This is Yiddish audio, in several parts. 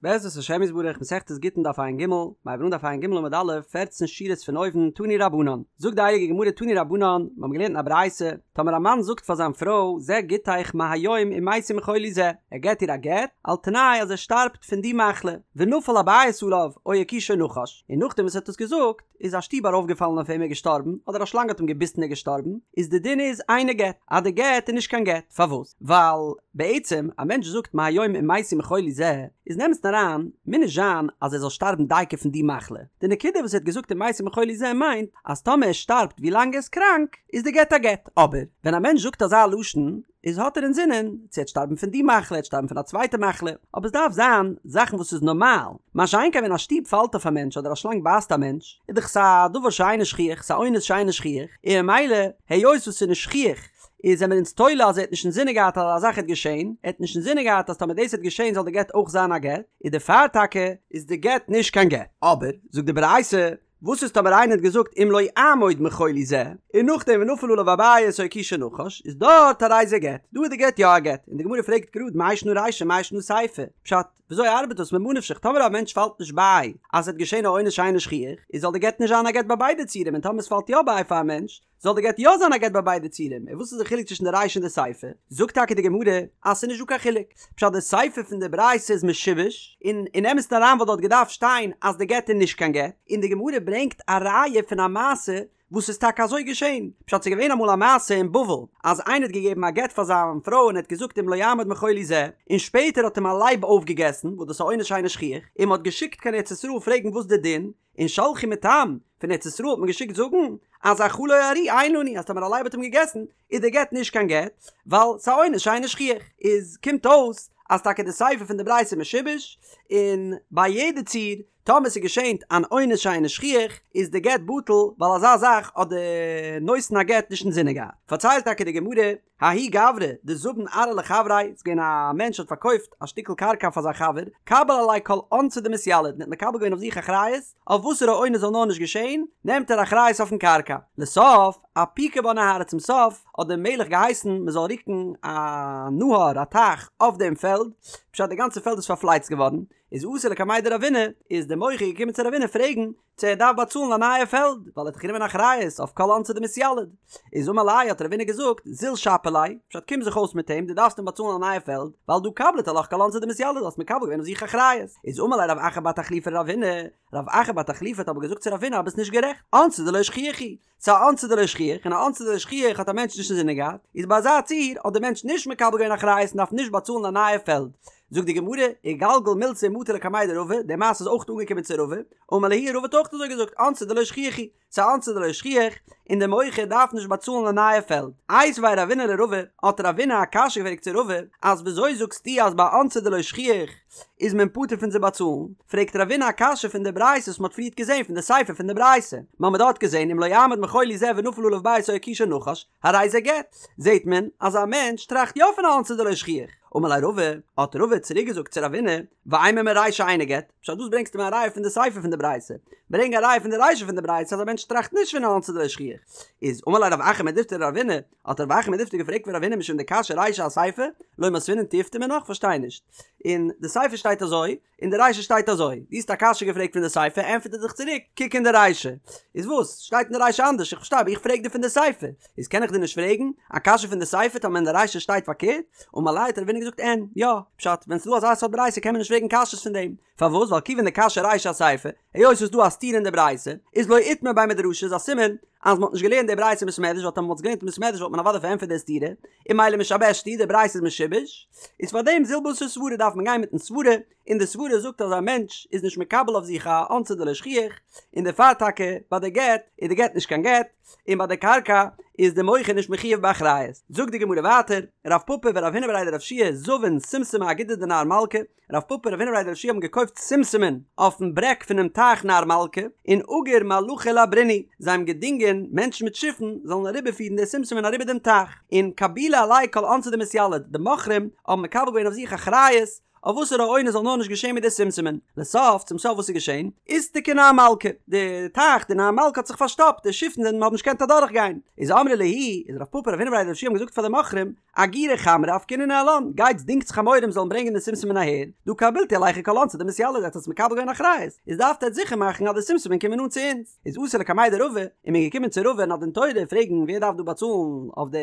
בעזרת השם יתברך מסכת גיטין דף ע"ג, מ'הייבט אן דף ע"ג עמוד א', פערצן שורות פון אויבן, תנו רבנן, זאגט די הייליגע גמרא תנו רבנן, מיר האבן געלערנט אין א ברייתא, טאמער א מאן זאגט פאר זיין פרוי זה גיטך מהיום אם מתי מחולי זה, ער געט איר א גט, על תנאי אז ער שטארבט פון די מחלה, ונפל הבית עליו או הכישו נחש, און נאכדעם וואס ער האט עס געזאגט, איז א שטוב ארויפגעפאלן אויף אים ער איז געשטארבן, אדער א שלאנג האט אים געביסן ער איז געשטארבן, איז די דין איז אינו גט, אז די גט איז נישט קיין גט, פארוואס? ווייל בעצם א מענטש זאגט מהיום אם מתי מחולי זה, איז אין אמת'ן אריין, מוז נישט זיין אז ער זאל שטארבן דייקא פון די מחלה, די נקודה וואס ער האט געזאגט אם מתי מחולי זה מיינט אז טאמער ער שטארבט ווי לאנג ער איז קראנק, איז די גט א גט, אבער ווען א מענטש זאגט אזא לשון, איז האט ער אינזינען צו ער וועט שטארבן פון די מחלה, ער וועט שטארבן פון א צווייטע מחלה, אבער עס דארף זיין זאכן וואס איז נארמאל, מה שאין כן ווען א שטוב פאלט אויף א מענטש אדער א שלאנג בייסט א מענטש, איז דאך עס א דבר שאינו שכיח, ס'איז א אונס שאינו שכיח, און ממילא היות וואס ס'איז נישט שכיח איז זעמיר אונז תולה אז ער האט נישט אינזינען געהאט אז אזא זאך העט געשען, ער האט נישט אינזינען געהאט אז טאמער דאס העט געשען זאל די גט אויך זיין א גט, איז דערפאר טאקע איז די גט נישט קיין גט. אבער, זאגט די ברייתא, וואס איז טאמער איינער האט געזאגט אם לא אעמוד מחולי זה, און נאכדעם ונפל עליו הבית או הכישו נחש, איז דארט הרי זה גט, דא איז די גט יא א גט, און די גמרא פרעגט גראד מאי שנא רישא מאי שנא סיפא, פשט, וויאזוי ארבעט דאס ממה נפשך טאמער א מענטש פאלט נישט ביי אז עס וועט געשען א אונס שאינו שכיח, איז זאל די גט נישט זיין א גט ביי ביידע ציורים און טאמער עס פאלט יא ביי פאר א מענטש, זאל די גט יא זיין א גט ביי ביידע ציורים, און וואס איז די חילוק צווישן די רישא און די סיפא? זאגט טאקע די גמרא אז ס'איז נישט דא קיין חילוק, פשט די סיפא פון די ברייתא איז משובש, און אין אמת'ן אריין וואלט דארט געדארפט שטיין אז די גט איז נישט קיין גט, און די גמרא ברענגט א ראיה פון א מעשה וואס איז טאקע אזוי געשען, פשט ס'איז געווען אמאל א מעשה אין בבל אז איינער האט געגעבן א גט פאר זיין פרוי און ער האט געזאגט אם לא אעמוד מחולי זה, און שפעטער האט אים א לייב אויפגעגעסן, וואס דאס איז א אונס שאינו שכיח, און מ'האט געשיקט קיין ארץ ישראל פרעגן וואס די דין, און שלחו מתם, פון ארץ ישראל האט מען געשיקט זאגן, אז אכלו ארי אין לנו, אז טאמער א לייב האט אים געגעסן, איז די גט נישט קיין גט, ווייל ס'איז א אונס שאינו שכיח. איז קומט אויס, אז טאקע די סיפא פון די ברייתא איז משובש, און ביי יעדע ציור, טאמער ס'איז געשענט אן אונס שאינו שכיח, איז די גט בטל, ווייל אזא זאך האט די נותן הגט נישט אינזינען געהאט. פארציילט טאקע די גמרא, ההוא גברא דזבין ארעא לחבריה, ס'איז געווען א מענטש האט פארקויפט א שטיקל קרקע פאר זיין חבר, קביל עליה כל אונסא דמתיליד, און האט מקבל געווען אויף זיך אחריות, אויף וואסערע אונס זאל נאר נישט געשען, נעמט ער אחריות אויפן קרקע. לסוף, אפיקו בה נהרא, צום סוף האט דער מלך געהייסן מען זאל רוקן א נהר, א טייך, אויף דעם פעלד, פשט די גאנצע פעלד איז פארפלייצט געווארן, איז אתא לקמיה דרבינא, איז דער מוכר געקומען צו רבינא פרעגן, צו ער דארף באצאלן א נייע פעלד, ווייל ער האט דאך גענומען אחריות אויף כל אונסא דמתיליד. איז אמר ליה האט רבינא געזאגט, זיל שפי ליה, פשט קום זיך אויס מיט אים, דו דארפסט אים באצאלן א נייע פעלד, ווייל דהא קבילת עלך כל אונסא דמתיליד, האסט מקבל געווען אויף זיך אחריות. איז אמר ליה רב אחא בר תחליפא לרבינא, רב אחא בר תחליפא האט אבער געזאגט צו רבינא אז ביסט נישט גערעכט, אונסא דלא שכיח הוא, ס'איז א אונסא דלא שכיח, און א אונסא דלא שכיח האט א מענטש נישט אינזינען געהאט, איז ביי אזא ציור האט דער מענטש נישט מקבל געווען אחריות און דארף נישט באצאלן א נייע פעלד. זאגט די גמרא, איגלגל מילתא ומטא לקמיה דרבא, די מעשה איז אויך אנגעקומען צו רבא, אמר להו רבא האט אויך אזוי געזאגט, אונסא דלא שכיח הוא, ס'איז א אונסא דלא שכיח, און דער מוכר דארף נישט באצאלן א נייע פעלד. איתיביה רבינא לרבא, האט רבינא א קשיא געפרעגט צו רבא, אז וויאזוי זאגסטו אז ביי אונסא דלא שכיח איז מען פטור פון צו באצאלן? פרעגט רבינא א קשיא פון די ברייתא וואס מ'האט פריערט געזען פון די סיפא פון די ברייתא, מ'האמיר דארט געזען אם לא אעמוד מחולי זה ונפל עליו בית או הכישו נחש, הרי זה גט. זעט מען אז א מענטש טראכט יא פון א אונסא דלא שכיח. אמר ליה רבא, האט רבא צוריק געזאגט צו רבינא, ואימא מרישא אינו גט, פשט וואס ברענגסטו מיר א ראיה פון די סיפא פון די ברייתא? ברענג א ראיה פון די רישא פון די ברייתא אז א מענטש טראכט נישט פון א אונסא דלא שכיח. איז אמר ליה רב אחא מדיפתי לרבינא, האט רב אחא מדיפתי געפרעגט פון רבינא משום דקשיא רישא אסיפא, לא מותבינן תיובתא מינה, כ'פארשטיי נישט. אין די סיפא שטייט אזוי, אין די רישא שטייט אזוי, דו האסט א קשיא געפרעגט פון די סיפא, ענטפערט ער דיך צוריק, קוק אין די רישא. איז וואס? שטייט אין די רישא אנדערש? איך פארשטיי אבער איך פרעג דיר פון די סיפא. איז קען איך דיר נישט פרעגן א קשיא פון די סיפא טאמער אין די רישא שטייט פארקערט? אמר ליה האט רבינא געזאגט אין, יא, פשט, ווען ס'איז דא אזא סארט ברייתא קען מען נישט פרעגן קשיות פון דעם. פארוואס? ווייל כיוון דקשיא רישא אסיפא, היות ס'איז דא א סתירה אין די ברייתא, איז לא איתמר בי מדרשא איז א סימן אז מ'האט נישט געלערנט די ברייתא אין בית מדרש ווייל טאמער מ'וואלט עס געלערנט אין בית מדרש וואלט מען אוודאי פארענטפערט די סתירה, און ממילא משבשת היא, די ברייתא איז משובש, איז פארדעם זיל בתר סברא דארף מען גיין מיטן סברא, און די סברא זאגט אז א מענטש איז נישט מקבל אויף זיך א אונסא דלא שכיח, און דערפאר טאקע ביי די גט איז די גט נישט קיין גט, און ביי די קרקע איז די מוכר נישט מחויב באחריות. זאגט די גמרא ווייטער, רב פפא ורב הונא בריה דרב יהושע זבין שומשמי אגודא דנהר מלכא, רב פפא און רב הונא בריה דרב יהושע האבן געקויפט שומשמין אויפן ברעג פונעם טייך נהר מלכא, און אגור מלחי לעברינהו, זיי האבן געדינגען מענטשן מיט שיפן זאלן אריבערפירן די שומשמין אריבער דעם טייך, און קבילו עלייהו כל אונסא דמתיליד, די מוכרים האבן מקבל געווען אויף זיך אחריות. אויף וואסערע אונס זאל נאר נישט געשען מיט די שומשמין. לסוף, צום סוף וואס איז געשען? איסתקא נהר מלכא, די טייך, די נהר מלכא האט זיך פארשטאפט, די שיפן זענען האבן נישט געקענט אדורך גיין. איז אמרי להו, איז רב פפא רב הונא בריה דרב יהושע האבן געזאגט פאר די מוכרים, אגירו חמרי אפקעינהו ניהלן, גייטס דינגטס חמורים זאלן ברענגען די שומשמין אהער, דהא קבילתו עלייכו כל אונסא דמתיילא, עטס האטס מקבל געווען אחריות, איז דארפט עטס זיכער מאכן אז די שומשמין קומען אן צו אונז. איז אתו לקמיה דרבא, און מען איז געקומען צו רבא אין א דין תורה פרעגן ווער דארף דא באצאלן אויף די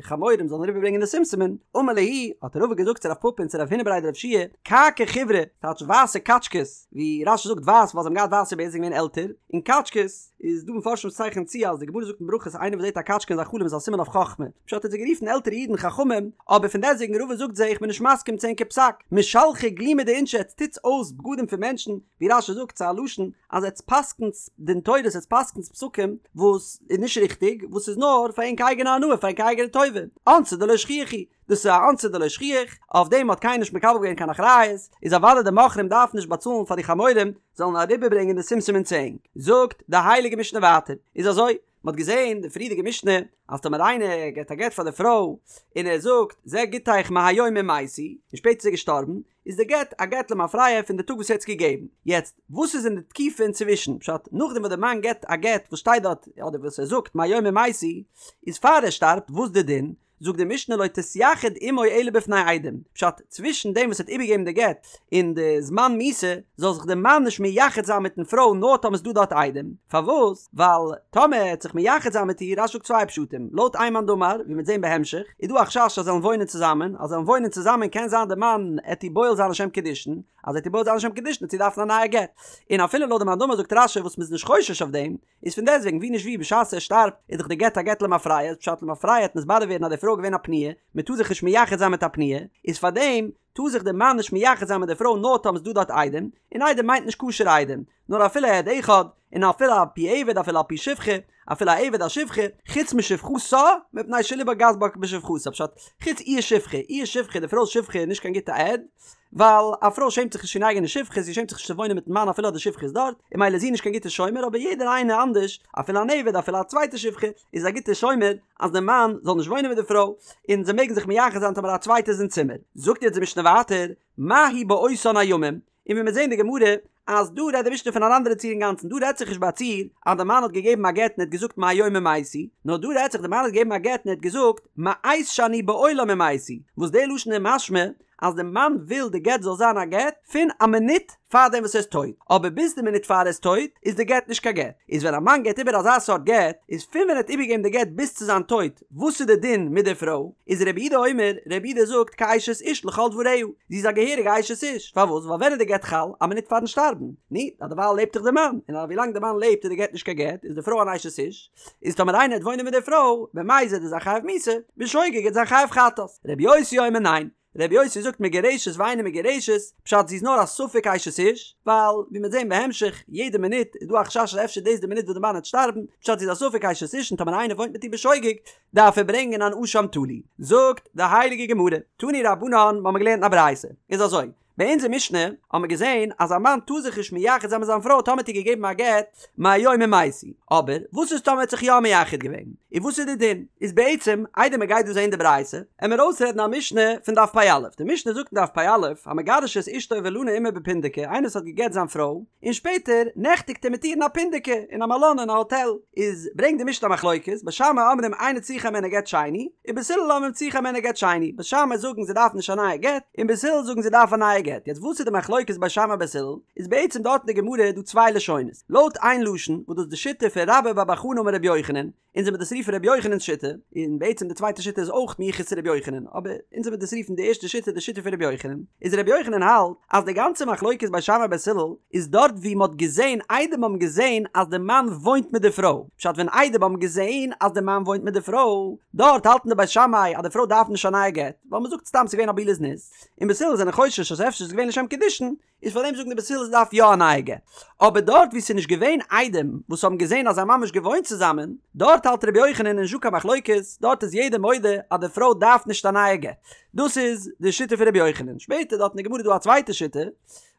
חמורים זאלן אריבער ברענגען די שומשמין, אמר להו, האט רבא געזאגט צו רב פפא און צו רב הונא בריה דרב יהושע, כעכי חיורי, טייטש ווייסע קאטשקעס, ווי רש"י זאגט ווייס ווייל זיי האבן געהאט ווייסע בערד זיי זענען געווען עלטער, און קאטשקעס, איז דא מפרשים וואס צייכענען צו אז די גמרא זאגט אין ברכות איינער וואס זעט א קאטשקע אין זיין חלום איז א סימן אויף חכמה, פשט האט זיי גערופן עלטערע אידן חכמים, אבער פון דעסטוועגן רבא זאגט זיי איך בין נישט מסכים צו ענקער פסק, משלחי גלימי דאינשי עטס טוטס אויס בגדים פון מענטשן, ווי רש"י זאגט ס'איז א לשון אז עטס פסק'נטס דין תורות עטס פסק'נטס פסקים וואס איז נישט ריכטיג וואס איז נאר פאר ענק אייגענע הנאה פאר ענק אייגענע טובה, אונסא דלא שכיח הוא, דאס איז א אונסא דלא שכיח, אויף דעם האט קיינער נישט מקבל געווען קיין אחריות, איז אוודאי די מוכרים דארפן נישט באצאלן פאר די חמורים זאלן אריבערברענגען די שומשמין צו ענק. זאגט די הייליגע משנה ווייטער, איז אזוי, מען האט געזען די פריערדיגע משנה אז טאמער איינער געבט א גט פאר די פרוי און ער זאגט זה גיטך מהיום אם מתי, און שפעטער איז ער געשטארבן, איז די גט א גט למפרע פון די טאג וואס ער האט עס געגעבן. יעצט, וואס איז אין די תקופה אינצווישן? פשט, נאכדעם וואס די מאן געבט א גט וואס שטייט דארט, אדער וואס ער זאגט מהיום אם מתי, איז פאר ער שטארבט, וואס די דין? זאגט די משנה לא תתייחד עמו אלא בפני עדים, פשט, צווישן דעם וואס ער האט איבערגעגעבן די גט און די זמן מיתה, זאל זיך די מאן נישט מייחד זיין מיטן פרוי נאר טאמער ס'דא דארט עדים, פארוואס? ווייל טאמער ער העט זיך מייחד זיין מיט איר, רש"י זאגט צוויי פשטים, לויט איין מאן דאמר, ווי מ'וועט זען בהמשך, איז דא א חשש אז זיי זאלן וואוינען צוזאמען, אז זיי זאלן וואוינען צוזאמען קען זיין די מאן עט איר בועל זיין לשם קידושין, אז ער עט איר בועל זיין לשם קידושין עט זי דארפן א נייע גט, און אפילו לויט די מאן דאמר זאגט רש"י וואס מ'איז נישט חושש אויף דעם, איז פון דעסטוועגן ווי נישט ווי בשעת ער שטארבט איז דאך די גט א גט למפרע איז פשט למפרע העט נתברר ווערן אז די פרוי איז געווען א פנויה מען טאר זיך נישט מייחד זיין מיט א פנויה איז פארדעם טאר זיך די מאן נישט מייחד זיין מיט די פרוי נאר טאמער ס'דא דארט עדים און עדים מיינט נישט כשר'ע עדים נאר אפילו עד אחד און אפילו על פי עבד אפילו על פי שפחה אפילו א עבד א שפחה חוץ משפחתה מפני שלבה גס בה בשפחתה פשט חוץ איר שפחה איר שפחה די פרוי'ס שפחה איז נישט קיין גוטע עד ווייל א פרוי שעמט זיך נישט פון אייגענע שפחה, זי שעמט זיך נישט צו וואוינען מיטן מאן אפילו אז די שפחה איז דארט, און ממילא איז זי נישט קיין גוטע שומר, אבער יעדער איינער אנדערש, אפילו אן עבד אפילו א צווייטע שפחה, איז א גוטע שומר אז די מאן זאל נישט וואוינען מיט די פרוי, און זיי מעגן זיך מייחד זיין טאמער א צווייטער איז אין צימער. זאגט יעצט די משנה ווייטער, מהו באותן הימים, און ווי מיר זעהן די גמרא, אז דא רעדט די משנה פון אן אנדערע ציור אינגאנצן, דא רעדט זיך נישט ביי א ציור אז די מאן האט געגעבן א גט און ער האט געזאגט מהיום אם מתי, נאר דא רעדט זיך די מאן האט געגעבן א גט און ער האט געזאגט מעת שאני בעולם אם מתי, וואס די לשון איז משמע אז די מאן וויל די גט זאל זיין א גט פון א מינוט פאר דעם וואס ער איז טויט, אבער ביז די מינוט פאר ער איז טויט איז די גט נישט קיין גט, איז ווען א מאן געבט איבער אזא סארט גט, איז פון ווען ער האט איבערגעגעבן די גט ביז צו זיין טויט, וואס איז די דין מיט די פרוי, איז רבי יהודה אומר, רבי יהודה זאגט כאשת איש לכל דבריה, זי איז א געהעריגע אשת איש, פארוואס? ווייל ווען איז די גט חל? א מינוט פארן שטארבן, נו, אז דערווייל לעבט דאך די מאן, און ווילאנג די מאן לעבט איז די גט נישט קיין גט, איז די פרוי אן אשת איש, איז טאמער איינער העט וואוינען מיט די פרוי, במזיד איז ער חייב מיתה, בשוגג העט זיין חייב חטאת. רבי יוסי אומר ניין, רבי יוסי זאגט מגורשת ואינה מגורשת, פשט זי איז נאר א ספק אשת איש, ווייל ווי מ'וועט זען בהמשך, יעדע מינוט איז דא א חשש אז אפשר דאס די מינוט וואס די מאן העט שטארבן, פשט זי איז א ספק אשת איש און טאמער איינער וואוינט מיט איר בשוגג, דארף ער ברענגען אן אשם תלוי. זאגט די הייליגע גמרא, תנו רבנן, מ'האמיר געלערנט אין א ברייתא, איז אזוי, ביי אונזער משנה האבן מיר געזען אז א מאן טאר זיך נישט מייחד זיין מיט זיין פרוי טאמער האט איר געגעבן א גט מהיום אם מתי, אבער וואס איז טאמער ער האט זיך יא מייחד געווען? און וואס איז די דין? איז בעצם איידער מען גייט דא זען די ברייתא, עמער אויסרעדן א משנה פון דף פ"א, די משנה זאגט אין דף פ"א, המגרש את אשתו ולנה עמה בפונדקי, איינער וואס האט געגט זיין פרוי, און שפעטער נעכטיגט ער מיט איר אין א פונדקי, אין א מלון אין א האטעל, איז ברענגט די משנה א מחלוקת, בית שמאי אומרים אינה צריכה הימנו גט שני, ובית הלל אומרים צריכה הימנו גט שני, בית שמאי זאגן זי דארף נישט א נייע גט, און בית הלל זאגן זי דארף א נייע גט, יעצט וואס איז די מחלוקת בית שמאי בית הלל, איז בעצם דארט אין די גמרא דא צוויי לשונות, לויט איין לשון וואס דאס איז די שיטה פון רבה בר בר חנה אמר רבי יוחנן, אונז וועמיר דאס רופן רבי יוחנן'ס שיטה, און בעצם די צווייטע שיטה איז אויך מיוחס צו רבי יוחנן, אבער אונז וועמיר דאס רופן די ערשטע שיטה די שיטה פון רבי יוחנן, איז רבי יוחנן האלט אז די גאנצע מחלוקת בית שמאי בית הלל איז דארט ווי מ'האט געזען עדים האבן געזען אז די מאן וואוינט מיט די פרוי, פשט ווען עדים האבן געזען אז די מאן וואוינט מיט די פרוי, דארט האלטן די בית שמאי אז די פרוי דארף נישט א נייע גט, ווייל מ'זאגט סתם ס'איז געווען א בעילת זנות, און בית הלל זענען חושש אז אפשר איז געווען לשם קידושין, איז פאר דעם זאגן די בית הלל זי דארף יא א נייע גט. אבער דארט וואו ס'איז נישט געווען עדים וואס האבן געזען אז זיי האבן ממש געוואוינט צוזאמען, דארט האלט רבי יוחנן נישטא קיין מחלוקת, דארט איז יעדער מודה אז די פרוי דארף נישט א נייע גט. דאס איז די שיטה פון רבי יוחנן. שפעטער דארט אין די גמרא איז דא א צווייטע שיטה.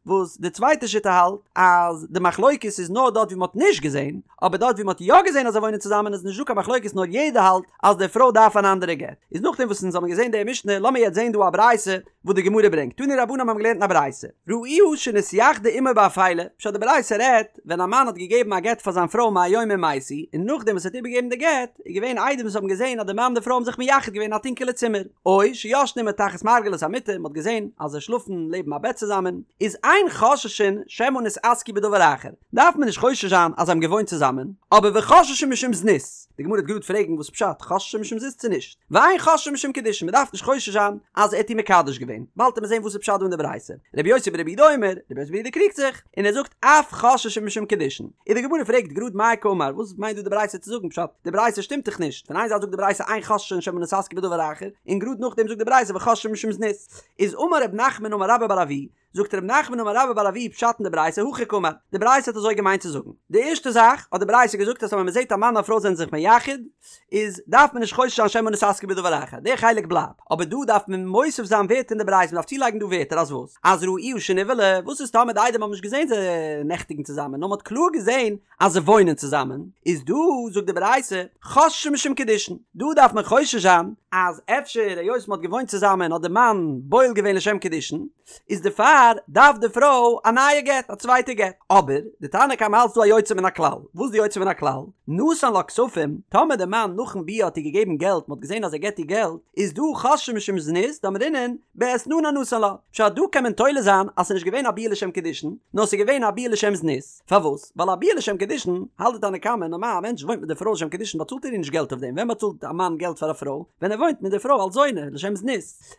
וואס די צווייטע שיטה האלט אז די מחלוקת איז נאר דארט ווי מ'האט נישט געזען, אבער דארט ווי מ'האט יא געזען אז זיי וואוינען צוזאמען איז נישט דא קיין מחלוקת נאר יעדער האלט אז די פרוי דארף אן אנדערע גט. איז נאכדעם וואס אונז האבן געזען די משנה לאמיר יעצט זען דא א ברייתא וואס די גמרא ברענגט, תנו רבנן האבן געלערנט אין א ברייתא, ראוה שנתייחדה עמו באפילה, פשט די ברייתא רעדט ווען א מאן האט געגעבן א גט פאר זיין פרוי מהיום אם מתי, און נאכדעם וואס ער האט איבערגעגעבן די גט, איז געווען עדים וואס האבן געזען אז די מאן און די פרוי האבן זיך מייחד געווען אין א טונקעלע צימער, או שישנה עמו תחת מרגלת המיטה, מען האט געזען אז זיי שלאפן לעבן א בעט צוזאמען, איז אין חוששין שמא נתעסקו בדבר אחר, דארף מען נישט חושש זיין אז זיי האבן געוואוינט צוזאמען, אבער וחוששין משום זנות, די גמרא וועט גראד פרעגן וואס פשט חוששין משום זנות צו נישט. ואין חוששין משום קידושין, מען דארף נישט חושש זיין אז ער האט איר מקדש געווען, באלד וועט מען זען וואס איז פשט דא אין די ברייתא. רבי יוסי ברבי יהודה אומר, רבי יוסי ברבי יהודה קריגט זיך, און ער זאגט אף חוששין משום קידושין. און די גמרא פרעגט גראד מאי קאמר, וואס מיינט דא די ברייתא צו זאגן פשט, די ברייתא שטימט דאך נישט, פון איין זייט זאגט די ברייתא אין חוששין שמא נתעסקו בדבר אחר, און גראד נאכדעם זאגט די ברייתא וחוששין משום זנות. איז אמר רב נחמן אמר רבה בר אבוה, זאגט רב נחמן אמר רבה בר אבוה פשט אין די ברייתא הכי קאמר, די ברייתא האט אזוי געמיינט צו זאגן, די ערשטע זאך האט די ברייתא געזאגט אז ווען מען זעט א מאן און א פרוי זענען זיך מייחד איז דארף מען נישט חושש זיין שמא נתעסקו בדבר אחר, די חלק בלייבט, אבער דא דארף מען מוסיף זיין ווערטער אין די ברייתא, מען דארף צולייגן דא ווערטער אז וואס? אז ראוה שנבעלה, וואס איז טאמער די עדים האבן נישט געזען זיי נעכטיגן צוזאמען נאר מען האט קלאר געזען אז זיי וואוינען צוזאמען, איז דא זאגט די ברייתא חוששין משום קידושין, דא דארף מען חושש זיין אז אפשר היות מען האט געוואוינט צוזאמען האט די מאן בועל געווען לשם קידושין, איז דערפאר דארף די פרוי א נייע גט, א צווייטע גט. אבער די תנא קמא האלט ס'דא א יוצא מן הכלל, וואס איז די יוצא מן הכלל? נתן לה כספים, טאמער די מאן נאכן ביאה האט איר געגעבן געלט, מען האט געזען אז ער געט איר געלט, איז דא חוששין משום זנות, דאמרינן, באתננה נתן לה. פשט דא קען מען תולה זיין אז ס'איז נישט געווען א ביאה לשם קידושין, נאר ס'איז געווען א ביאה לשם זנות. פארוואס? ווייל א ביאה לשם קידושין, האלט די תנא קמא, נארמאל א מענטש וואוינט מיט די פרוי לשם קידושין באצאלט ער איר נישט געלט אויף דעם, ווען באצאלט א מאן געלט פאר א פרוי? ווען ער וואוינט מיט די פרוי אלס זונה, לשם זנות.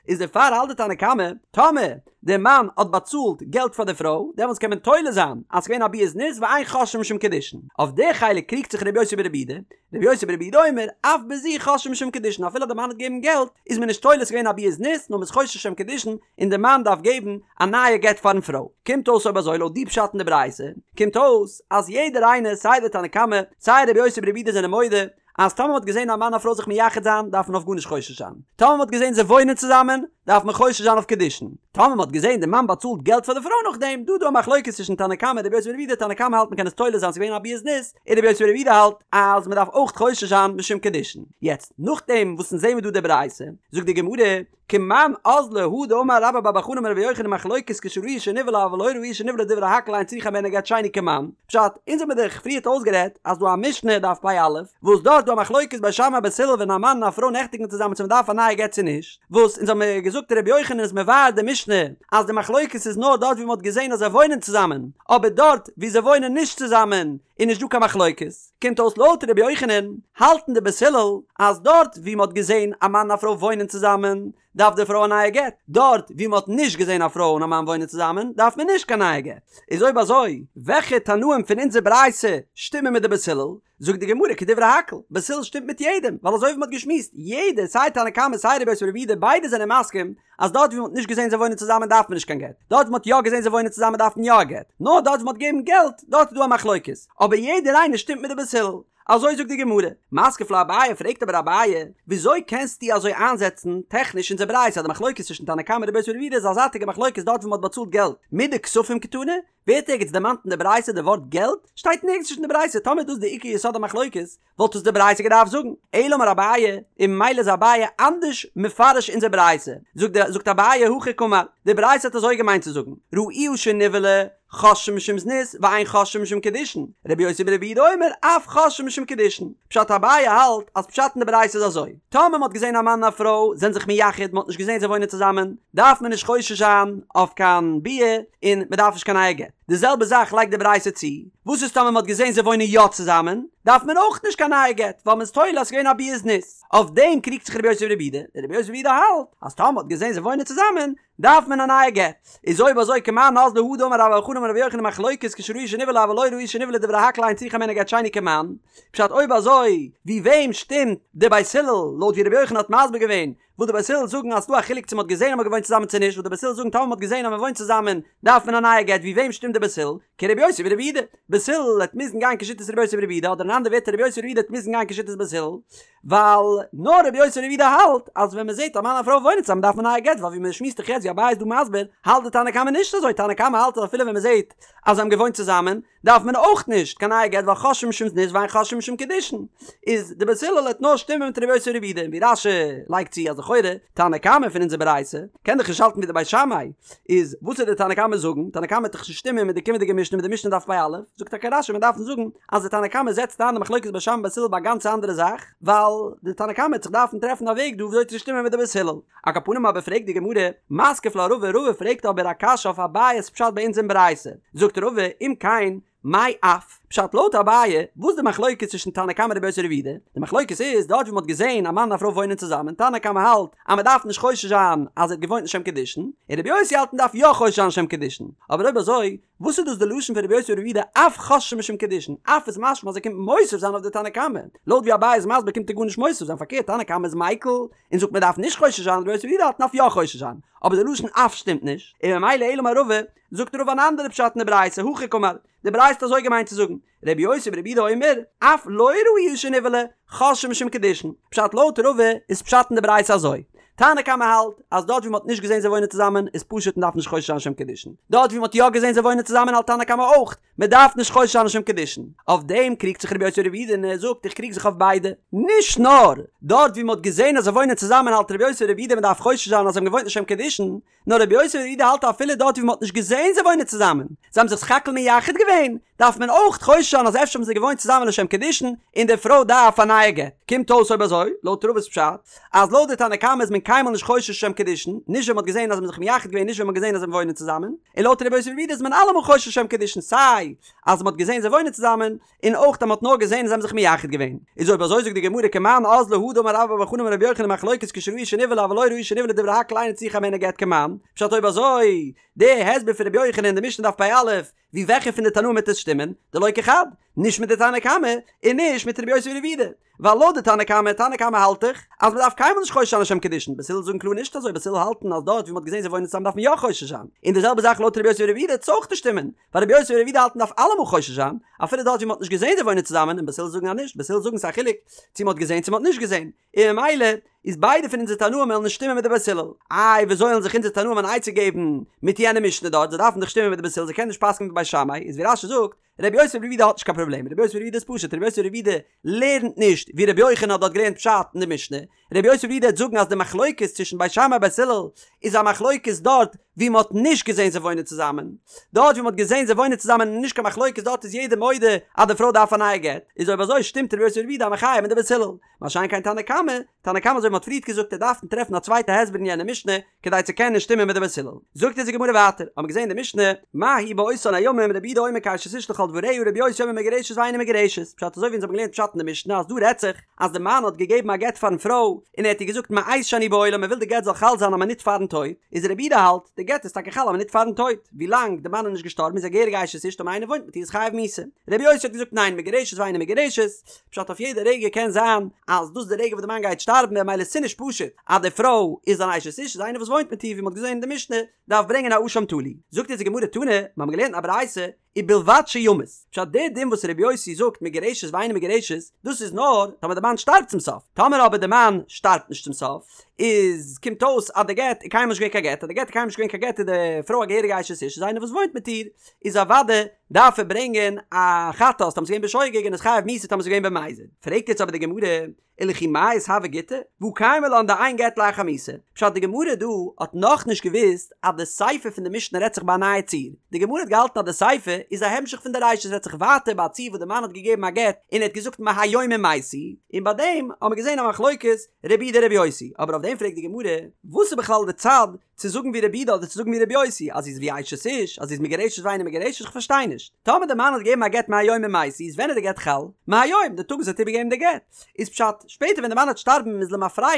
איז דערפאר האלט די תנא קמא, טאמער די מאן האט באצאלט געלט פאר די פרוי, דעמאלטס קען מען תולה זיין אז ס'געווען א ביאת זנות ואין חוששין משום קידושין. אויף די חלק קריגט זיך רבי יוסי ברבי יהודה, רבי יוסי ברבי יהודה אומר, אף בזו חוששין משום קידושין, אפילו די מאן האט געגעבן געלט, איז מען נישט תולה ס'געווען א ביאת זנות, נאר מ'איז חושש לשם קידושין, און די מאן דארף געבן א נייע גט פארן פרוי. קומט אויס אויב אזוי לויט די פשט אין די ברייתא, קומט אויס אז יעדער איינער סיי די תנא קמא, סיי רבי יוסי ברבי יהודה זענען מודה, אז טאמער מ'האט געזען א מאן א פרוי זיך מייחד זיין דארף מען אויף גארנישט חושש זיין, טאמער מ'האט געזען זיי וואוינען צוזאמען דארף מען חושש זיין אויף קידושין, טאמער מ'האט געזען די מאן באצאלט געלט פאר די פרוי נאכדעם, דא איז דא א מחלוקת צווישן תנא קמא און רבי יוסי ברבי יהודה, תנא קמא האלט מ'קען עס תולה זיין ס'איז געווען א ביאת זנות, און רבי יוסי ברבי יהודה האלט אז מ'דארף אויך חושש זיין משום קידושין. יעצט, נאכדעם וואס אונז זעמיר דא די ברייתא, זאגט די גמרא, כמאן אזלא הא דאמר רבה בר בר חנה אמר רבי יוחנן מחלוקת כשראוה שנבעלה אבל לא ראוה שנבעלה דברי הכל אין צריכה הימנו גט שני כמאן, פשט, אונז האמיר דאך פריערט אויסגערעדט אז דא א משנה דף פ"א, וואס דארט דא א מחלוקת בית שמאי בית הלל ווען א מאן און א פרוי נעכטיגן צוזאמען צו מ'דארף א נייע גט צו נישט, וואס אונז האמיר געזאגט רבי יוחנן איז מבאר די משנה אז די מחלוקת איז נאר דארט ווי מ'האט געזען אז זיי וואוינען צוזאמען, אבער דארט ווי זיי וואוינען נישט צוזאמען איז נישט דא קיין מחלוקת, קומט אויס לויט רבי יוחנן האלטן די בית הלל אז דארט ווי מ'האט געזען א מאן און א פרוי וואוינען צוזאמען דארף די פרוי א נייע גט, דארט ווי מ'האט נישט געזען א פרוי און א מאן וואוינען צוזאמען דארף מען נישט קיין נייע גט. איז אויב אזוי וועלכע תנאים פון אונזער ברייתא שטימען מיט די בית הלל? זאגט די גמרא כדברי הכל, בית הלל שטימט מיט יעדעם, ווייל אזוי ווי מ'האט געשמועסט, יעדער סיי תנא קמא סיי רבי יוסי ברבי יהודה ביידע זענען מסכים אז דארט ווי מ'האט נישט געזען זיי וואוינען צוזאמען דארף מען נישט קיין גט, דארט ווי מ'האט יא געזען זיי וואוינען צוזאמען דארף מען יא א גט, נאר דארט ווי מ'האט געגעבן געלט, דארט איז דא א מחלוקת, אבער יעדער איינער שטימט מיט די בית הלל. אזוי זאגט די גמרא. מתקיף לה אביי פרעגט אבער אביי, וויאזוי קענסטו אזוי איינזעצן טעכניש אונזער ברייתא אז די מחלוקת צווישן תנא קמא און רבי יוסי ברבי יהודה איז א זייטיגע מחלוקת דארט ווי מ'האט באצאלט געלט מדכספים קתני? ווערט ערגעץ דערמאנט אין די ברייתא די ווארט געלט? שטייט נערגעץ נישט אין די ברייתא, טאמער איז דאס די עיקר יסוד המחלוקת, וואלט עס די ברייתא געדארפט זאגן. אלא אמר אביי, און ממילא איז אביי אנדערש מפרש אונזער ברייתא. זאגט די זאגט אביי הכי קאמר, די ברייתא האט אזוי געמיינט צו זאגן, ראוה שנבעלה, חוששין משום זנות, ואין חוששין משום קידושין, רבי יוסי ברבי יהודה אומר, אף חוששין משום קידושין. פשט אביי האלט אז פשט אין די ברייתא איז אזוי, טאמער מען האט געזען א מאן און א פרוי זענען זיך מייחד, מען האט נישט געזען זיי וואוינען צוזאמען, דארף מען נישט חושש זיין אויף קיין ביאה, און מען דארף נישט קיין נייע גט. די זעלבע זאך לייגט די ברייתא צו, וואס איז טאמער מען האט געזען זיי וואוינען יא צוזאמען, דארף מען אויך נישט קיין נייע גט, ווייל מען איז תולה אז ס'איז געווען א ביאת זנות. אויף דעם קריגט זיך רבי יוסי ברבי יהודה, און רבי יוסי ברבי יהודה האלט אז טאמער מען האט געזען זיי וואוינען צוזאמען, דארף מען א נייע גט. איז אויב אזוי כמאן אזלא הא דאמר רבה בר בר חנה אמר רבי יוחנן מחלוקת כשראוה שנבעלה אבל לא ראוה שנבעלה דברי הכל אין צריכה הימנו גט שני כמאן, פשט אויב אזוי ווי וועם שטימט די בית הלל לויט ווי רבי יוחנן האט מסביר געווען? וואס די בית הלל זאגן אז ס'דא א חילוק צו מ'האט געזען אז מ'האט געוואוינט צוזאמען צו נישט, וואס די בית הלל זאגן טאמער מ'האט געזען אז מ'וואוינט צוזאמען דארף מען א נייע גט, ווי וועם שטימט די בית הלל? כרבי יוסי ברבי יהודה, בית הלל וועט מוזן גיין כשיטת רבי יוסי ברבי יהודה אדער אין אנדערע ווערטער רבי יוסי ברבי יהודה וועט מוזן גיין כשיטת בית הלל, ווייל נאר רבי יוסי ברבי יהודה האלט אז ווען מ'זעט א מאן און א פרוי וואוינען צוזאמען דארף מען א נייע גט, ווייל ווי מ'שמועסט דאך יעצט ווי אביי איז דא מסביר האלט די תנא קמא נישט אזוי, תנא קמא האלט אז אפילו ווען מ'זעט אז זיי האבן געוואוינט צוזאמען דארף מען אויך נישט קיין נייע גט ווייל חוששין משום זנות ואין חוששין משום קידושין איז די בית הלל וועט נאר שטימען מיט רבי יוסי ברבי יהודה און ווי רש"י לייגט צו אז לכאורה תנא קמא פון אונזער ברייתא קען דאך נישט האלטן ווי די בית שמאי איז וואס וועט די תנא קמא זאגן תנא קמא וועט דאך נישט שטימען מיט די קומענדיגע משנה מיט די משנה דף פ"א זאגט טאקע רש"י מען דארף זאגן אז די תנא קמא זעצט איין די מחלוקת בית שמאי בית הלל ביי א גאנץ אנדערע זאך ווייל די תנא קמא וועט זיך דארפן טרעפן א וועג דא וויאזוי צו שטימען מיט די בית הלל. על כל פנים אבער פרעגט די גמרא, מתקיף לה רבא, רבא פרעגט אבער א קשיא אויף אביי'ס פשט ביי אונז אין ברייתא, זאגט רבא, אם כן, מאי אף, פשט לויט אביי, וואס די מחלוקת צווישן תנא קמא רבי יוסי ברבי יהודה, די מחלוקת איז דארט ווי מען האט געזען א מאן און א פרוי וואוינען צוזאמען, תנא קמא האלט אז מען דארף נישט חושש זיין אז ער האט געוואוינט לשם קידושין, און רבי יוסי האלט מען דארף יא חושש זיין לשם קידושין, אבער אויב אזוי, וואס איז דאס די לשון פון רבי יוסי ברבי יהודה אף חוששין משום קידושין? אף איז משמע אז ער קומט מוסיף זיין אויף די תנא קמא. לויט ווי אביי איז מסביר קומט ער גארנישט מוסיף זיין פארקערט תנא קמא איז מיקל און זאגט מען דארף נישט חושש זיין רבי יוסי ברבי יהודה האלט מ'דארף יא חושש זיין אבער די לשון אף שטימט נישט און ממילא אלא אמר רבא זאגט רבא אן אנדערע פשט אין די ברייתא הכי קאמר די ברייתא האט אזוי געמיינט צו זאגן רבי יוסי ברבי יהודה אומר אף לא ראוה שנבעלה חוששין משום קידושין פשט לויט רבא איז פשט אין די ברייתא אזוי תנא קמא האלט אז דארט ווי מ'האט נישט געזען זיי וואוינען צוזאמען איז פשוט מ'דארף נישט חושש זיין לשם קידושין דארט ווי מ'האט יא געזען זיי וואוינען צוזאמען האלט תנא קמא אויך מ'דארף נישט חושש זיין לשם קידושין אויף דעם קריגט זיך רבי יוסי ברבי יהודה און ער זאגט איך קריג זיך אויף ביידע נישט נאר דארט ווי מ'האט געזען אז זיי וואוינען צוזאמען האלט רבי יוסי ברבי יהודה מ'דארף חושש זיין אז זיי האבן געוואוינט לשם קידושין נאר רבי יוסי ברבי יהודה האלט אפילו דארט ווי מען האט נישט געזעהן זיי וואוינען צוזאמען, זיי האבן זיך סך הכל מייחד געווען, דארף מען אויך חושש זיין אז אפשר האבן זיי געוואוינט צוזאמען לשם קידושין, און די פרוי דארף א נייע גט. קומט אויס אויב אזוי, לויט רבא'ס פשט, אז לויט די תנא קמא איז מען קיינמאל נישט חושש לשם קידושין, נישט ווען מען האט געזעהן אז זיי האבן זיך מייחד געווען נישט ווען מען האט געזעהן אז זיי וואוינען צוזאמען, און לויט רבי יוסי ברבי יהודה איז מען אלעמאל חושש לשם קידושין סיי אז מען האט געזעהן זיי וואוינען צוזאמען, און אויך אז מען האט נאר געזען אז זיי האבן זיך מייחד געווען. איז אויב אזוי זאגט די גמרא כמאן אזלא הא דאמר רבה בר בר חנה אמר רבי יוחנן מחלוקת כשראוה שנבעלה אבל לא ראוה שנבעלה דברי הכל אינה צריכה הימנו גט כמאן, פשט אויב אזוי די הסבר פון רבי יוחנן אין די משנה דף פ"א, ווי וועלכע פון די תנאים וועט עס שטימען? דלא כחד, נישט מיט די תנא קמא און נישט מיט רבי יוסי ברבי יהודה. ווייל לויט די תנא קמא, תנא קמא האלט דאך אז מען דארף קיינמאל נישט חושש זיין לשם קידושין, בית הלל זאגן קלאר נישט אזוי, בית הלל האלטן אז דארט ווי מען האט געזען זיי וואוינען צוזאמען דארף מען יא חושש זיין, און די זעלבע זאך לויט רבי יוסי ברבי יהודה וועט עס אויך נישט שטימען, ווייל רבי יוסי ברבי יהודה האלט מען דארף אלעמאל חושש זיין, אפילו דארט ווי מען האט נישט געזען זיי וואוינען צוזאמען, און בית הלל זאגן אז נישט, בית הלל זאגן ס'איז א חילוק צו מען האט געזען צו מען האט נישט געזען, און ממילא איז ביידע פון אונזער תנאים וועלן נישט שטימען מיט די בית הלל. איי ווי אזוי וועלן זיך אונזער תנאים אן עצה געבן מיט יענע משנה דארט, זיי דארפן דאך שטימען מיט די בית הלל, זיי קענען נישט פסק'נען ווי בית שמאי, איז ווי רש"י זאגט, רבי יוסי ברבי יהודה האט נישט קיין פראבלעם, רבי יוסי ברבי יהודה איז פשוט, רבי יוסי ברבי יהודה לערנט נישט ווי רבי יוחנן האט דארט געלערנט פשט אין די משנה, רבי יוסי ברבי יהודה וועט זאגן אז די מחלוקת צווישן בית שמאי בית הלל איז א מחלוקת דארט ווי מען האט נישט געזען זיי וואוינען צוזאמען, דארט ווי מען האט געזען זיי וואוינען צוזאמען איז נישט קיין מחלוקת דארט איז יעדער מודה אז די פרוי דארף א נייע גט, איז אויב אזוי שטימט רבי יוסי ברבי יהודה א מחיה מיט די בית הלל, מה שאין כן תנא קמא, תנא קמא אזוי ווי מען האט פריערט געזאגט ער דארף טרעפן א צווייטע הסבר אין יענע משנה כדי צו קענען שטימען מיט די בית הלל. זאגט אונז די גמרא ווייטער, האבן מיר געזען אין די משנה, מה היא באותן הימים רבי יהודה אומר כאשת איש לכל דבריה רבי יוסי אומר מגורשת ואינה מגורשת, פשט אזוי ווי אונז האבן געלערנט פשט אין די משנה אז דא רעדט זיך אז די מאן האט געגעבן א גט פארן פרוי און ער האט איר געזאגט מעת שאני בעולם ער וויל די גט זאל חל זיין א מינוט פארן טויט, איז רבי יהודה האלט די גט איז טאקע חל א מינוט פארן טויט, ווילאנג די מאן איז נישט געשטארבן איז א געהעריגע אשת איש טאמער איינער וואוינט מיט איר איז חייב מיתה, רבי יוסי האט געזאגט ניין מגורשת ואינה מגורשת, פשט אויף יעדע רגע קען זיין אז דאס איז די רגע וואס די מאן גייט שטארבן ממילא ס'נישט פשוט אז די פרוי איז אן אשת איש איז איינער וואס וואוינט מיט איר ווי מ'האט געזען אין די משנה דארף ברענגען א אשם תלוי זאגט אונז די גמרא תנא מ'האבן געלערנט א ברייתא ובלבד שימות פשט די דין וואס רבי יוסי זאגט מגורשת ואינה מגורשת דאס איז נאר טאמער די מאן שטארבט צום סוף טאמער אבער די מאן שטארבט נישט צום סוף איז קומט אויס אז די גט איז קיינמאל נישט געווען קיין גט אז די גט איז קיינמאל נישט געווען קיין גט איז די פרוי א געהעריגע אשת איש איז איינער וואס וואוינט מיט איר איז אוודאי דארף ער ברענגען א חטאת טאמער ס'איז געווען בשוגג און איז חייב מיתה טאמער ס'איז געווען במזיד. פרעגט יעצט אבער די גמרא, ולכי מיית הוי גיטא, והא קיימא לן דאין גט לאחר מיתה. פשט די גמרא דא האט נאכנישט געוואוסט אז די סיפא פון די משנה רעדט זיך ביי א נייע ציור. די גמרא האט געהאלטן אז די סיפא איז א המשך פון די רישא ס'רעדט זיך ווייטער ביי א ציור וואס די מאן האט געגעבן א גט און ער האט געזאגט מהיום אם מתי, און ביי דעם האבן מיר געזען א מחלוקת רבי יהודה רבי יוסי. אבער אויף דעם פרעגט די גמרא, וואס איז בכלל די צד צו זאגן ווי רבי יהודה אדער צו זאגן ווי רבי יוסי אז זי איז ווי אשת איש אז זי איז מגורשת ואינה מגורשת איך פארשטיי נישט טאמער די מאן האט געגעבן א גט מהיום אם מתי איז ווען איז די גט חל? מהיום די טאג וואס ער האט איבערגעגעבן די גט איז פשט שפעטער ווען די מאן וועט שטארבן איז למפרע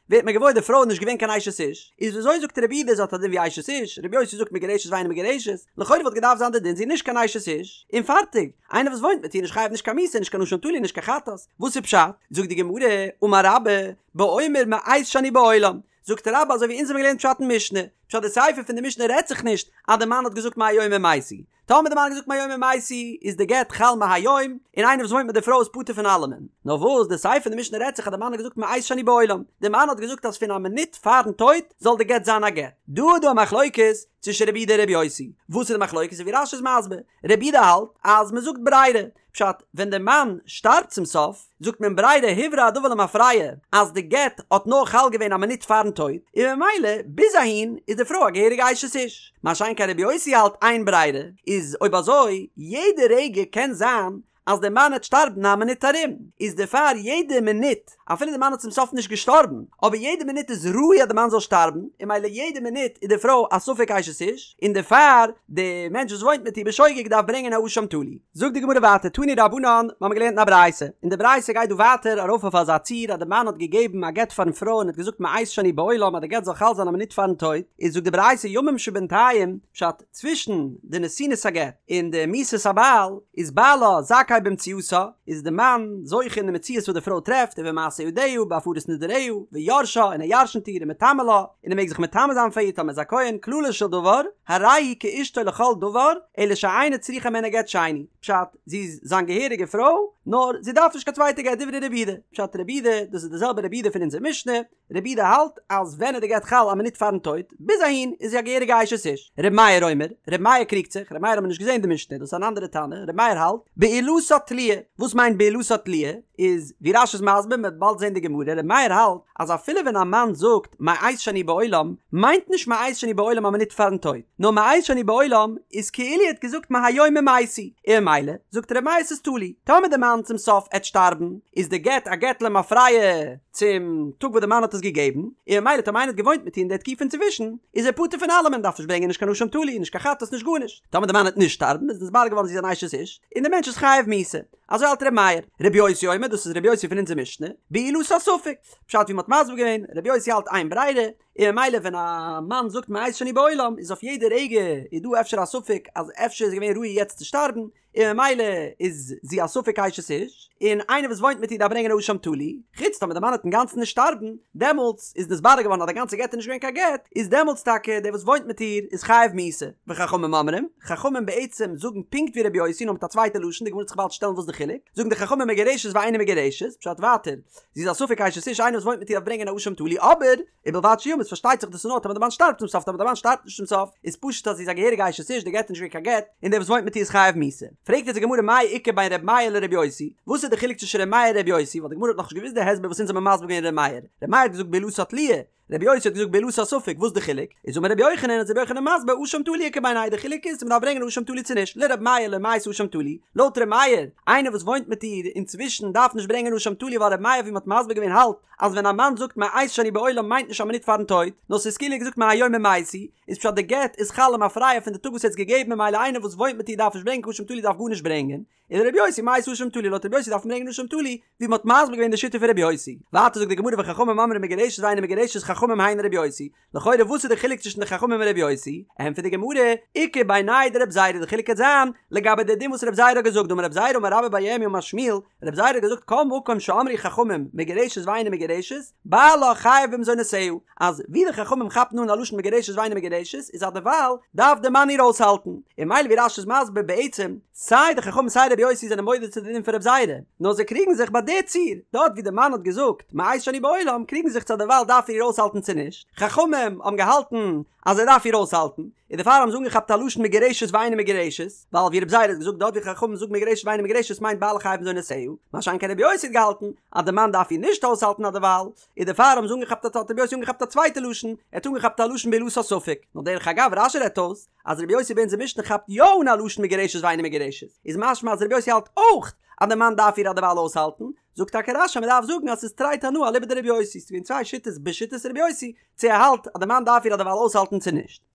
ווערט מען געוואויר די פרוי איז נישט געווען קיין אשת איש איז וויאזוי זאגט רבי יהודה זי האט א דין ווי אשת איש רבי יוסי זאגט מגורשת ואינה מגורשת לכאורה וואלט געדארפט זיין די דין זי איז נישט קיין אשת איש און פארטיג איינער וואס וואוינט מיט איר נישט חייב נישט קיין מיתה נישט קיין אשם תלוי נישט קיין חטאת וואס איז פשט זאגט די גמרא אמר רבה באומר מעת שאני בעולם. זאגט רבה אזוי ווי אונז האבן געלערנט פשט אין משנה, פשט די סיפא פון די משנה רעדט זיך נישט אז די מאן האט געזאגט מהיום אם מתי, טאמער די מאן האט געזאגט מהיום אם מתי איז די גט חל מהיום, און איינער וואס וואוינט מיט די פרוי איז פטור פון אלעמען. נאר וואס, די סיפא פון די משנה רעדט זיך אז די מאן האט געזאגט מעת שאני בעולם, די מאן האט געזאגט אז פון א מינוט פארן טויט זאל די גט זיין א גט. דא איז דא א מחלוקת צווישן רבי יהודה און רבי יוסי. וואס איז די מחלוקת? ווי רש"י איז מסביר, רבי יהודה האלט אז מען זאגט ברירה, פשט, ווען די מאן שטארבט צום סוף, זאגט מען ברירה הוברר הדבר למפרע אז די גט האט נאר חל געווען א מינוט פארן טויט, און ממילא ביז אהין איז די פרוי א געהעריגע אשת איש. מה שאין כן רבי יוסי האלט אין ברירה, איז אויב אזוי יעדע רגע קען זיין אז די מאן העט שטארבן א מינוט ארום, איז דערפאר יעדע מינוט, אפילו די מאן האט צום סוף נישט געשטארבן, אבער יעדע מינוט איז ראוי אז די מאן זאל שטארבן, און ממילא יעדע מינוט איז די פרוי א ספק אשת איש, און דערפאר די מענטש וואס וואוינט מיט איר בשוגג דארף ברענגען א אשם תלוי. זאגט די גמרא ווייטער תנו רבנן, מיר האבן געלערנט אין א ברייתא, און די ברייתא גייט דא ווייטער ארויף אויף אזא ציור אז די מאן האט געגעבן א גט פארן פרוי און האט געזאגט מעת שאני בעולם אז די גט זאל חל זיין א מינוט פארן טויט, איז זאגט די ברייתא ימים שבינתיים, פשט, צווישן די נתינת הגט און די מיתת הבעל איז בעלה זכאי במציאתה, איז די מאן זוכה אין די מציאות וואס די פרוי טרעפט ובמעשה ידיה ובהפרת נדריה ויורשה און ער ירשנט איר ומטמא לה און ער מעג זיך מטמא זיין פאר איר טאמער איז א כהן כללו של דבר הרי היא כאשתו לכל דבר אלא שאינה צריכה הימנו גט שני פשט זי איז זיין געהעריגע פרוי נאר זי דארף נישט קיין צווייטע גט דברי רבי יהודה פשט רבי יהודה דאס איז די זעלבע רבי יהודה פון אונזער משנה רבי יהודה האלט אז ווען איז די גט חל א מינוט פארן טויט, ביז אהין איז זי א געהעריגע אשת איש. רבי מאיר אומר, רבי מאיר קריגט זיך, רבי מאיר האט מען נישט געזען די משנה, דאס איז אן אנדערע תנא, רבי מאיר האלט, בעילתה תלויה, וואס מיינט בעילתה תלויה? איז ווי רש"י איז מסביר, מען וועט באלד זען די גמרא, רבי מאיר האלט אז אפילו ווען א מאן זאגט מעת שאני בעולם, מיינט נישט מעת שאני בעולם א מינוט פארן טויט, נאר מעת שאני בעולם איזכאילו ער האט געזאגט מהיום אם מתי, און ממילא זאגט רבי מאיר ס'איז תלוי, טאמער די מאן צום סוף עט שטארבן, איז די גט א גט למפרע, צום טאג וואס די מאן האט עס געגעבן, און ממילא טאמער איינער האט געוואוינט מיט איר אין די תקופה אינצווישן, איז ער פטור פון אלעמען, דארף נישט ברענגען נישט קיין אשם תלוי, נישט קיין חטאת, נישט גארנישט. טאמער די מאן וועט נישט שטארבן, איז נתברר געווארן זי איז אן אשת איש, און דער מענטש איז חייב מיתה. אזוי האלט ר' מאיר. ר' יוסי אומר, דאס איז ר' יוסי פון אונזער משנה, בעילתה ספק. פשט ווי מ'האט מסביר געווען, ר' יוסי האלט אין ברירה, און ממילא ווען א מאן זאגט מעת שאני בעולם, איז אויף יעדע רגע איז דא אפשר א ספק אז אפשר איז געווען ראוי יעצט צו שטארבן, און ממילא איז זי א ספק אשת איש, און איינער וואס וואוינט מיט איר דארף ברענגען א אשם תלוי, חוץ טאמער די מאן וועט אינגאנצן נישט שטארבן, דעמאלטס איז נתברר געווארן אז די גאנצע גט איז נישט געווען קיין גט, איז דעמאלטס טאקע דער וואס וואוינט מיט איר איז חייב מיתה. וחכמים אומרים, חכמים בעצם זאגן פונקט ווי רבי יוסי נאר מיט א צווייטע לשון, די גמרא וועט זיך באלד שטעלן וואס די חילוק, זאגן די חכמים מגורשת ואינה מגורשת, פשט ווייטער, זי איז א ספק אשת איש איינער וואס וואוינט מיט איר דארף ברענגען א אשם תלוי, אבער, ובלבד שימות פארשטייט זיך דאס איז נאר טאמער די מאן שטארבט צום סוף טאמער די מאן שטארבט נישט צום סוף איז פשוט אז זי איז א געהעריגע אשת איש די גט איז נישט געווען קיין גט און דער וואס וואוינט מיט איר איז חייב מיתה פרעגט יעצט די גמרא מאי איכא בין ר' מאיר לר' יוסי וואס איז די חילוק צווישן ר' מאיר און ר' יוסי ווייל די גמרא האט נאכנישט געוואוסט די הסבר וואס אונז האבן מסביר געווען ר' מאיר ר' מאיר האט געזאגט בעילתה תלויה ר' יוסי האט געזאגט בעילתה ספק וואס די חילוק איז אמר ר' יוחנן איז ר' יוחנן מסביר אשם תלוי איכא בינייהו די חילוק איז צו מ'דארף ברענגען אשם תלוי צו נישט לר' מאיר לא מייתי אשם תלוי לויט ר' מאיר איינער וואס וואוינט מיט איר אינצווישן דארף נישט ברענגען אשם תלוי ווייל ר' מאיר ווי מ'האט מסביר געווען האלט אז ווען א מאן זאגט מעת שאני בעולם מיינט נישט א מינוט פארן טויט, נאר ס'איז כאילו ער האט געזאגט מהיום אם מתי, איז פשט די גט איז חל למפרע פון די טאג וואס ער האט עס געגעבן ממילא איינער וואס וואוינט מיט איר דארף נישט ברענגען קיין אשם תלוי דארף גארנישט ברענגען, ולר' יוסי מייתי אשם תלוי לויט ר' יוסי דארף מען ברענגען אשם תלוי, ווי מ'האט מסביר געווען די שיטה פון ר' יוסי. ווייטער זאגט די גמרא וחכמים אומרים מגורשת ואינה מגורשת חכמים היינו ר' יוסי, לכאורה וואס איז די חילוק צווישן די חכמים און ר' יוסי? ענטפערט די גמרא, איכא בינייהו דרב זירא די חילוק קען זיין לגבי די דין וואס רב זירא האט געזאגט דאמר רב זירא אמר רבה בר ירמי' אמר שמואל, רב זירא האט געזאגט כל מקום שאמרו חכמים מגורשת ואינה מגורשת, בעלה חייב במזונותיה, אז ווי די חכמים כאפן אן א לשון מגורשת ואינה מגורשת איז אז דערווייל דארף די מאן איר אויסהאלטן, און ממילא ווי רש"י איז מסביר בעצם סיי די חכמים סיי רבי יוסי זענען מודה צו די דין פון רב זירא, נאר זיי קריגן זיך ביי די ציור, דארט ווי די מאן האט געזאגט מעת שאני בעולם קריגן זיך צו דערווייל דארף ער איר אויסהאלטן צו נישט, חכמים האבן געהאלטן אז ער דארף איר אויסהאלטן, און דערפאר האבן זיי אנגעכאפט א לשון מגורשת ואינה מגורשת, ווייל ווי רב זירא האט געזאגט דארט ווי חכמים זאגן מגורשת ואינה מגורשת מיינט בעלה חייב במזונותיה, מה שאין כן רבי יוסי האט געהאלטן אז די מאן דארף איר נישט אויסהאלטן אדערווייל, און דערפאר האבן זיי אנגעכאפט א האט רבי יוסי אנגעכאפט א צווייטע לשון, ער האט אנגעכאפט א לשון בעילתה ספק, נאר דרך אגב רש"י רעדט אויס אז רבי יוסי ביי אונזער משנה כאפט יא אן א לשון מגורשת ואינה מגורשת, איז משמע אז רבי יוסי האלט אויך אז די מאן דארף איר אדערווייל אויסהאלטן, זאגט טאקע רש"י אז מ'דארף זאגן אז ס'איז תרי תנאי אליבא דרבי יוסי, ס'איז געווען צוויי שיטות בשיטת רבי יוסי, צו ער האלט אז די מאן דארף איר אדערווייל אויסהאלטן צו נישט.